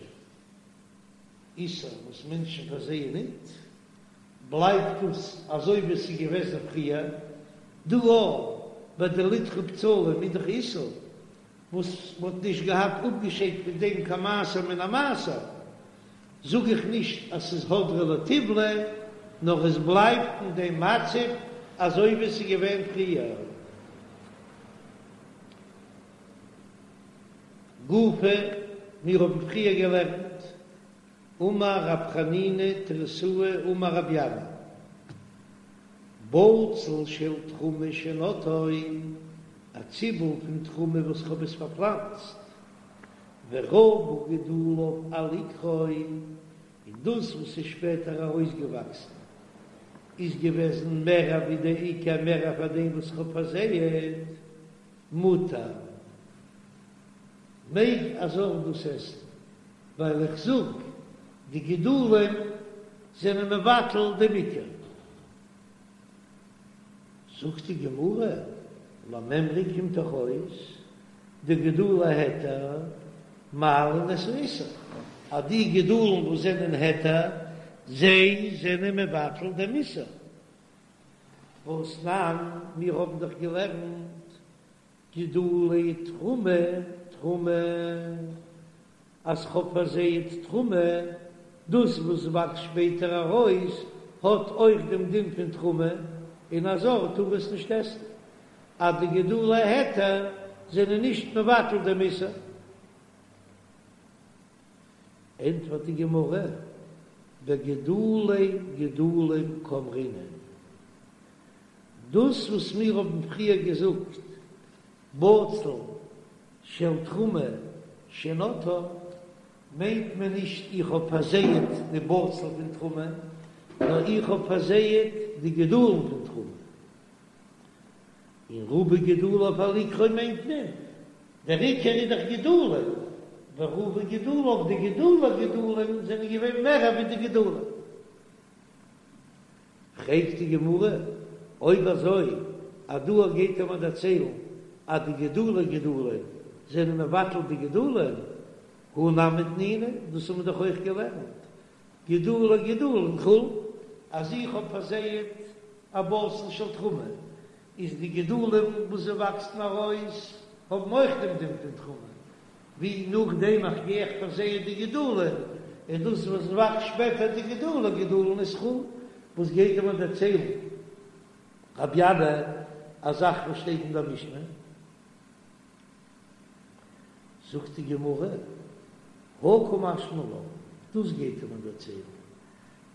איסור וואס מענטשן פארזייען ניט, בלייבט דאס אזוי ווי עס איז געוועזן פריער, דא אויך ביי די ליטרא בצלים איז דאך איסור וואס מען האט נישט געהאט אפגעשיידט פון דעם קיין מעשר מן המעשר, זאג איך נישט אז ס'איז הדרא לטיבלא, נאר עס בלייבט אין דעם מצב אזוי ווי עס איז געווען פריער. גופא, מיר האבן פריער געלערנט, אמר רב חנינא תריתאה אמר רבי ינאי, בצל של תרומה שנטעו, א ציבל פון תרומה וואס כ'האב עס פארפלאנצט, ורבו גידוליו על עיקרו, און דאס וואס איז שפעטער ארויסגעוואקסן איז געוועזן מער ווי די עיקר מער פאר דעם וואס כ'האב פארזייעט. מותר, מעג א זר דאס עסן, ווייל איך זאג, די גידולים זענען מבטל דעם עיקר. זאגט די גמרא, למימרא קומט דאך אויס, דגידולי היתר מעלין את האיסור, אז די גידולים וואס זענען היתר, זיי זענען מבטל דעם איסור. והתנן, מיר האבן דאך געלערנט גידולי תרומה, תרומה, אז כ'האב פארזייט תרומה, דאס וואס וואקסט שפעטער ארויס האט אויך דעם דין פון תרומה, און א זר טאר עס נישט עסן, אז די גידולי היתר זענען נישט מבטל דעם איסור. ענטפערט די גמרא, בגידולי גידולין קאמרינן, דאס וואס מיר האבן פריער געזאגט בצל של תרומה שנטעה, מיינט מען נישט איך האב פארזייעט די בצל פון תרומה, נאר איך האב פארזייעט די גידולין פון תרומה. און רבו גידוליו על עיקרו מיינט מען, דער עיקר איז דאך גידולין, ורבו גידוליו די גידולי גידולין זענען געווען מער ווי די גידולין. פרעגט די גמרא, אויב אזוי אז דא גייט ער מיר דערציילן אז די גידולי גידולין זענען מבטל די גידולין, הא נמי תנינא, דאס האבן מיר דאך אויך געלערנט, גידולי גידולין חולין, אז איך האב פארזייעט א בצל של תרומה, איז די גידולים וואס זיי וואקסן ארויס האבן אויך דעם דין פון תרומה, ווי נאכדעם איך גיי איך פארזייען די גידולים, און דאס וואס וואקסט שפעטער די גידולי גידולין איז חולין, וואס גייט ער מיר דערציילן רבי ינאי א זאך וואס שטייט אין דער משנה? זאגט די גמרא, הא קא משמע לן, דאס גייט ער מיר דערציילן,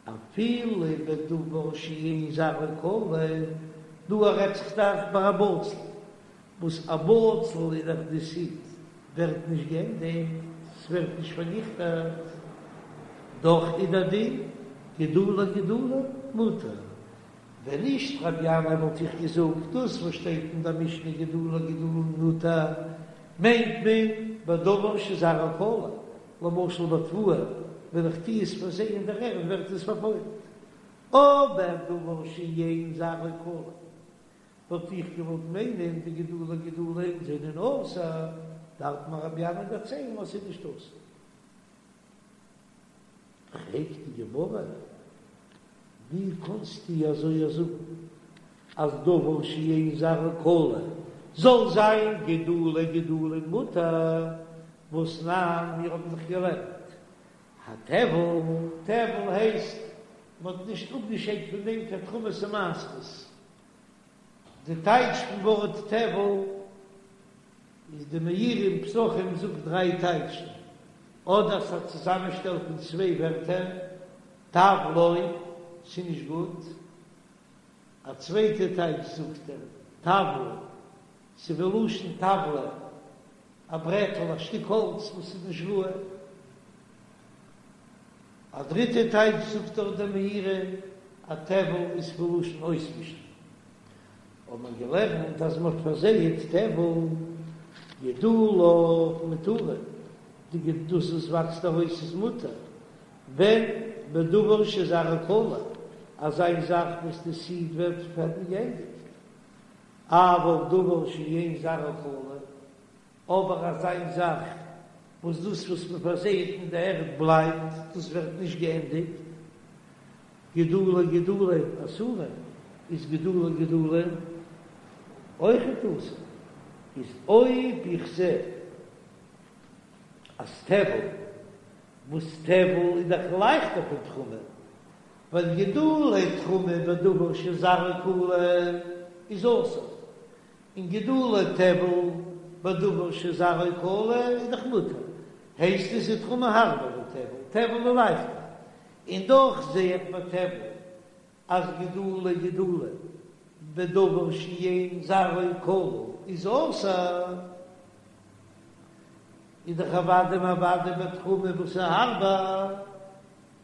אפילו בדבר שאין זרעו כלה, דא רעדט זיך דאך ביי א בצל, וואס א בצל איז דאך די סיד ווערט נישט געענדיגט, ס'ווערט נישט פארניכטעט, דאך איז דער דין גידולי גידולין מותר, ווען נישט רבי ינאי וואלט איך געזאגט דאס וואס שטייט אין דער משנה גידולי גידולין מותר מיינט מען בדבר שזרעו כלה, למשל ביי תבואה ווען איך טוה עס פארזייען אין דער ערד ווערט עס פארפוילט. אבער דבר שאין זרעו כלוי וואלט איך געוואלט מיינען די גידולי גידולין זענען אסור, דארף מיר רבי ינאי דערציילן אז ס'איז נישט אסור. פרעגט די גמרא, ווי קאנסטו אזוי זאגן אז דבר שאין זרעו כלוי זאל זיין גידולי גידולין מותר, והתנן, מיר האבן דאך געלערנט הטבל, טבל הייסט מען האט נישט אפגעשיידט פון דעם קיין תרומות ומעשרות, די טייטש פון ווארט טבל איז די מאירי אין פסחים זאגט דריי טייטשן, אדער ס'איז א צוזאמענשטעל פון צוויי ווערטער, טב לא, ס'איז נישט גוט, א צווייטע טייטש זאגט ער, טבל, ס'איז ווי לשון טבלא, א ברעטל, א שטיק האלץ וואס איז נישט ראוי. א דריטע טייטש זאגט דארט דער מאירי, א טבל איז פון לשון אויסמישן. האט מען געלערנט אז מען האט פארזייט טבל גידוליו מותרין, די דאס וואס וואקסט ארויס איז מותר, ווען בדבר שזרעו כלוי, אזא זאך וואס די סיד ווערט פערטיג געענדיגט, אבל דבר שאין זרעו כלוי, אבער אזא זאך וואס דאס וואס מען פארזייט אין די ערד בלייבט, דאס ווערט נישט געענדיגט, גידולי גידולין אסורין, איז גידולי גידולין אויכעט אסור, איז אויב איך זע אז טבל, וואס טבל איז דאך לייכטער פון תרומה, ווייל גידולי תרומה בדבר שזרעו כלוי איז אסור, און גידולי טבל בדבר שזרעו כלוי איז דאך מותר, הייסט עס איז תרומה הארבער ווי טבל, טבל איז לייכטער, און דאך זע איך ביי טבל אז גידולי גידולין בדבר שאין זרעו כלוי איז אסור, איז דאך אוודאי און אוודאי ביי תרומה וואס איז הארבער.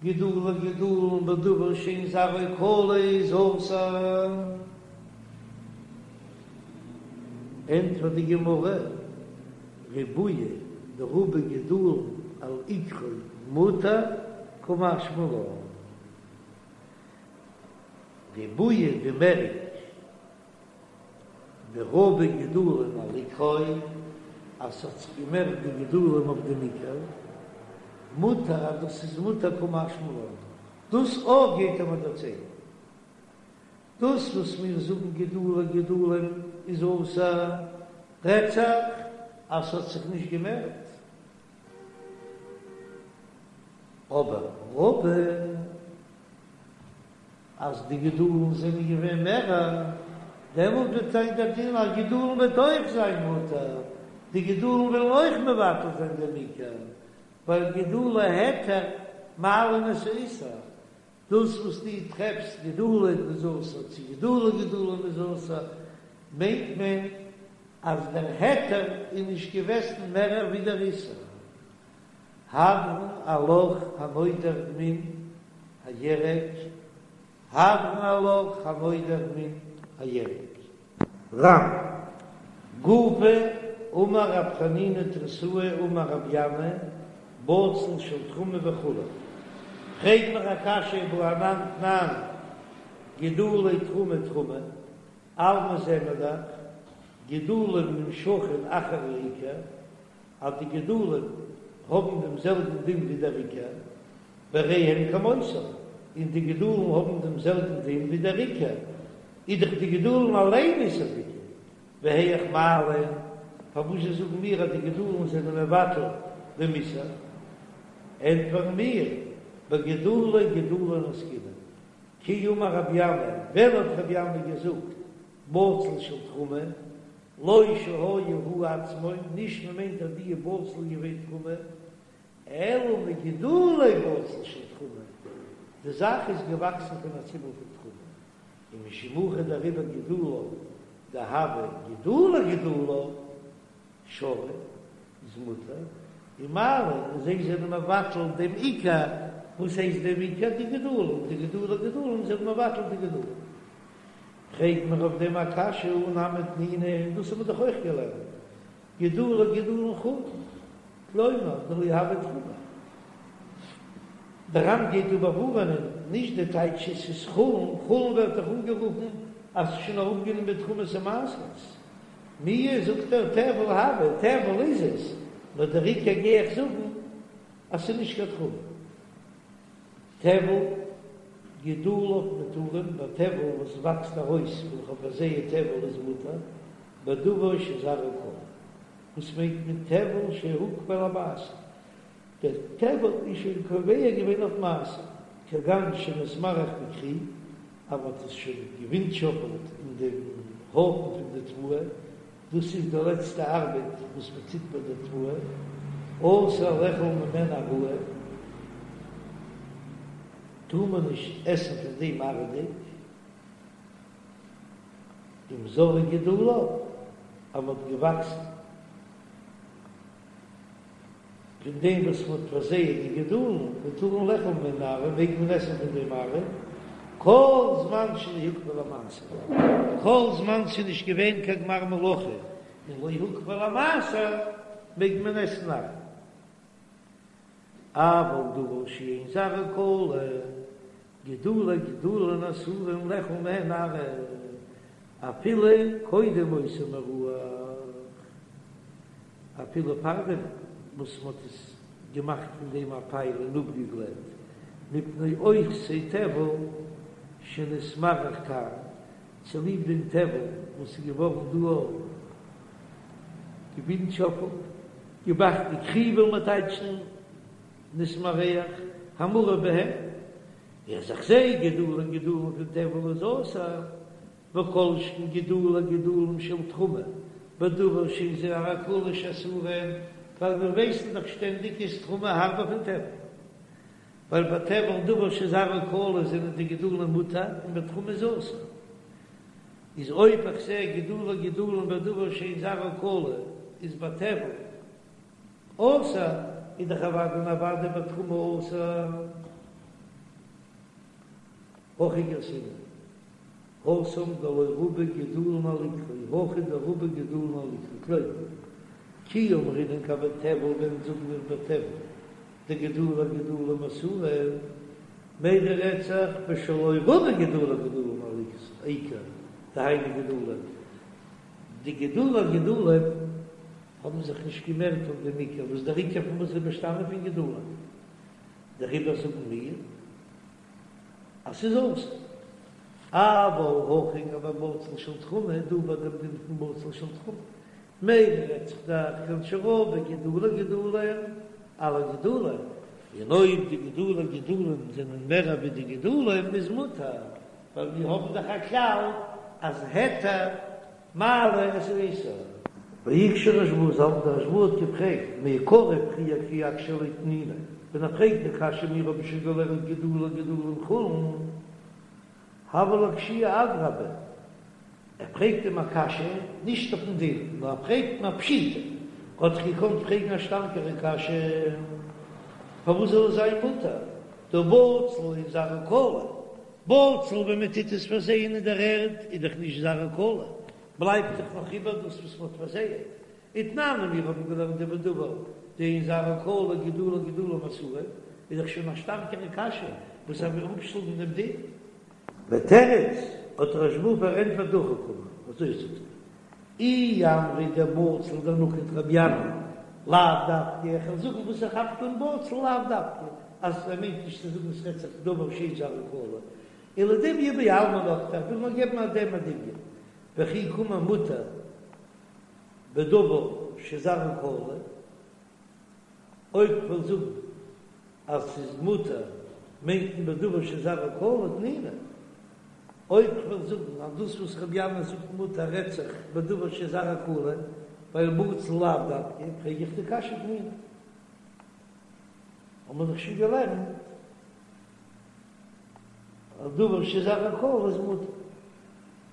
גידולי גידולין בדבר שאין זרעו כלוי איז אסור. ענטפערט די גמרא, ריבויא דרבו גידולין על עיקרו מותר קא משמע לן. ריבויא די מערונג דרבו גידולין על עיקרו, אז ס'האט זיך געמערט די גידולים אויף דעם עיקר, מותר אז דאס איז מותר קא משמע לן, דאס אויך גייט ער מיר דערציילן. דאס וואס מיר זאגן גידולי גידולין איז אסור, רעדט זיך אז ס'האט זיך נישט געמערט. אבער רבו. אז די גידולין זענען געווען מערער, דעמאלט וועט זיין דער דין אז גידולין וועט אויך זיין מותר, די גידולין וועלן אויך מבטל זיין דעם עיקר, ווייל גידולי היתר מעלין את האיסור, דאס וואס דו טרעפסט גידולין איז אסור צו גידולי גידולין איז אסור, מיינט מען אז דער היתר איז נישט געוועזן מערער ווי דער איסור. הדרן עלך הנודר מן הירק, הדרן עלך הנודר מן הירק. רמ. גופא, אמר רב חנינא תריתאה אמר רב ינאי, בצל של תרומה וכו'. פרעג מיר א קשיא והא אנן תנן גידולי תרומה תרומה, אלמא זעען מיר דאך גידולים נמשכין אחר העיקר, אז די גידולים האבן דעם זעלבן דין ווי דער עיקר, והרי הן כמותן, און די גידולים האבן דעם זעלבן דין ווי דער עיקר, איז דאך די גידולים אליין איסור'דיגע, והיאך מעלין, פארוואס זשע זאגן מיר אז די גידולים זענען מבטל דעם איסור? ענטפערן מיר, בגידולי גידולין עסקינן, כי אמר רבי ינאי, ווען האט רבי ינאי געזאגט בצל של תרומה, לא שהיה הוא עצמו, נישט מען מיינט אז די בצל איז געווען תרומה, אלא מגידולי בצל של תרומה, די זאך איז געוואקסן פון א ציבל פון תרומה, און משום הכי דעריבער גידוליו דהוו גידולי גידוליו שרי איז מותר, ומעלין און זיי זענען מבטל דעם עיקר, וואס הייסט דעם עיקר? די גידולים, די גידולי גידולים זענען מבטל די גידולים. פרעגט מען אויף דעם א קשיא הא נמי תנינא, און דאס האט מען דאך אויך געלערנט, גידולי גידולין חולין, כלומר דלא הוו תרומה. דער ר"ן גייט דא באווארענען. נישט די טייטש עס איז חולין, חולין ווערט דאך אנגערופן אז ס'איז שוין אראפגענומען תרומות ומעשרות. מיהו זאגט ער טבל הוי, טבל איז עס, נאר דער עיקר גיי איך זאגן אז ס'איז נישט קיין תרומה. טבל, גידוליו מותרים, ביי טבל וואס וואקסט ארויס ווען איך האב פארזייט טבל איז מותר, בדבר שזרעו כלה. וואס מיינט מען טבל שהוקפא למעשר? דער טבל איז שוין קובע געווען אויף מעשר, כגון שנתמרח בכרי, אז מען האט עס שוין געווינטשאפעלט אין דעם הויפן פון די תבואה, דאס איז די לעצטע ארבעט וואס מען טוט ביי די תבואה, אסור לאכול ממנו עראי, טאר מען נישט עסן פון דעם עראי'דיג, אם זרעו גידוליו, אז מען האט געוואקסן. פון דעם וואס מען האט פארזייט די גידולין, מותרין לאכול ממנו עראי, מעג מען עסן פון דעם עראי, כל זמן שלא הוקפא למעשר, כל זמן ס'איז נישט געווען קיין גמר מלאכה און לא הוקפא למעשר, מעג מען עסן עראי. אבל דבר שאין זרעו כלה, גידולי גידולין אסורין לאכול מהן עראי, אפילו קודם אותו מירוח, אפילו פארדעם וואס מ'האט עס געמאכט פון דעם א פייל און אפגעגלעט, מפני אותו טבל שנתמרח כאן, צוליב דעם טבל וואס איז געווארן דא געווינטשאפלט, געמאכט די כרי וויל מען טייטשן נתמרח, המעורב בהן, אז איך זע גידולי גידולין פון טבל איז אסור, וכל שכן גידולי גידולין של תרומה, בדבר שאין זרעו כלה שאסורין, ווייל מיר ווייסן דאך שטענדיג איז תרומה הארבער פון טבל, ווייל ביי טבל דבר שזרעו כלה זענען די גידולין מותר און ביי תרומה איז אסור, איז אויב איך זע גידולי גידולין בדבר שאין זרעו כלה איז ביי טבל אסור, איז דאך אוודאי און אוודאי ביי תרומה אסור. הכי גרסינן, התם דלא רבו גידולין על עיקרו, הכא דרבו גידולין על עיקרו, כלומר, כי אמרינן גבי טבל ווען זאגן מיר ביי טבל דגידולי גידולין אסורין, מידע רעדט זיך בשלא רבו גידולי גידולין על עיקר, דהיינו גידולין, די גידולי גידולין האבן זיך נישט געמערט אויף דעם עיקר, וואס דער עיקר פון וואס איז באשטאנען פון גידולין, דעריבער זאגן מיר אז ס'איז אסור. אבל הכא גבי בצל של תרומה, דא ביי דעם דין פון בצל של תרומה, מידע רעדט זיך דאך כגון שרבו גידולי גידולין על הגידולין, און אויב די גידולי גידולין זענען מער ווי די גידולים איז מותר, ווייל מיר האבן דאך א כלל אז היתר מעלה את האיסור. והקשה רשב"א, דער רשב"א האט געפרעגט, מעיקרא פריער כי אקשיא ליה תנינא, ווען ער פרעגט די קשיא מיר האבן שוין געלערנט גידולי גידולין חולין, הוה ליה קשיא אדרבה, ער פרעגט אים א קשיא נישט אויפן דין, נאר ער פרעגט אים א פשיטא, האט זיך געקאנט פרעגן א שטארקערע קשיא, פארוואס זאל עס זיין מותר, דהא בצל אין זרעו כלה, בצל ווען מען טוט עס פארזייען אין דער ערד איז דאך נישט זרעו כלה, בלייבט דאך נאך איבער דאס וואס מען האט פארזייעט. ותנן מיר האבן געלערנט דבדבר דאין זרעו כלה גידולי גידולין אסורין, איז דאך שוין א שטארקערע קשיא וואס ער וויל אפשלאגן דעם דין. ותירץ, האט רשב"א פארענטפערט דהכי קאמר, אזוי זאגט ער, אי אמרת דבצל דנקט רבי ינאי, לאו דווקא, איך וועל זאגן וואס ער כאפט אן בצל לאו דווקא, אז ער מיינט נישט צו זאגן עס רעדט זיך דבר שאין זרעו כלה, אלא דומיא בעלמא נקטיה, איך וויל נאר געבן אויף דעם א דמיון, וכי קאמר מותר בדבר שזרעו כלה, אויב כ'וועל זאגן אז ס'איז מותר מיינט מען בדבר שזרעו כלה תנינא, אויב כ'וועל זאגן אז דאס וואס רבי ינאי זאגט מותר רעדט זיך בדבר שזרעו כלה, ווייל בצל לאו דווקא, פרעג איך די קשיא תנינא. האבן מיר דאך שוין געלערנט אז דבר שזרעו כלה איז מותר.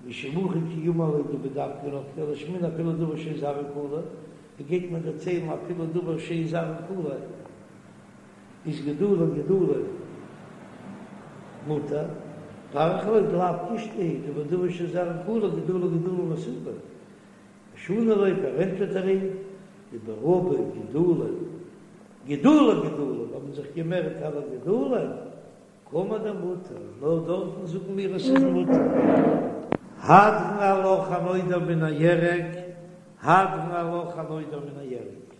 משום הכי כי אמר ליה דבדווקא נקטיה לשמעינן אפילו דבר שאין זרעו כלה, ווי גייט מען דערציילן אפילו דבר שאין זרעו כלה איז גידולי גידולין מותר, פריך ליה דלאו קושטא היא דבדבר שזרעו כלה גידולי גידולין אסורין, שני ליה פארענטפערט ער אים דברבו גידולין גידולי גידולין האבן זיך געמערט על הגידולין. קאמר דמותר, נאר דארטן זאגן מיר עס איז מותר. הדרן עלך הנודר מן הירק, הדרן עלך הנודר מן הירק.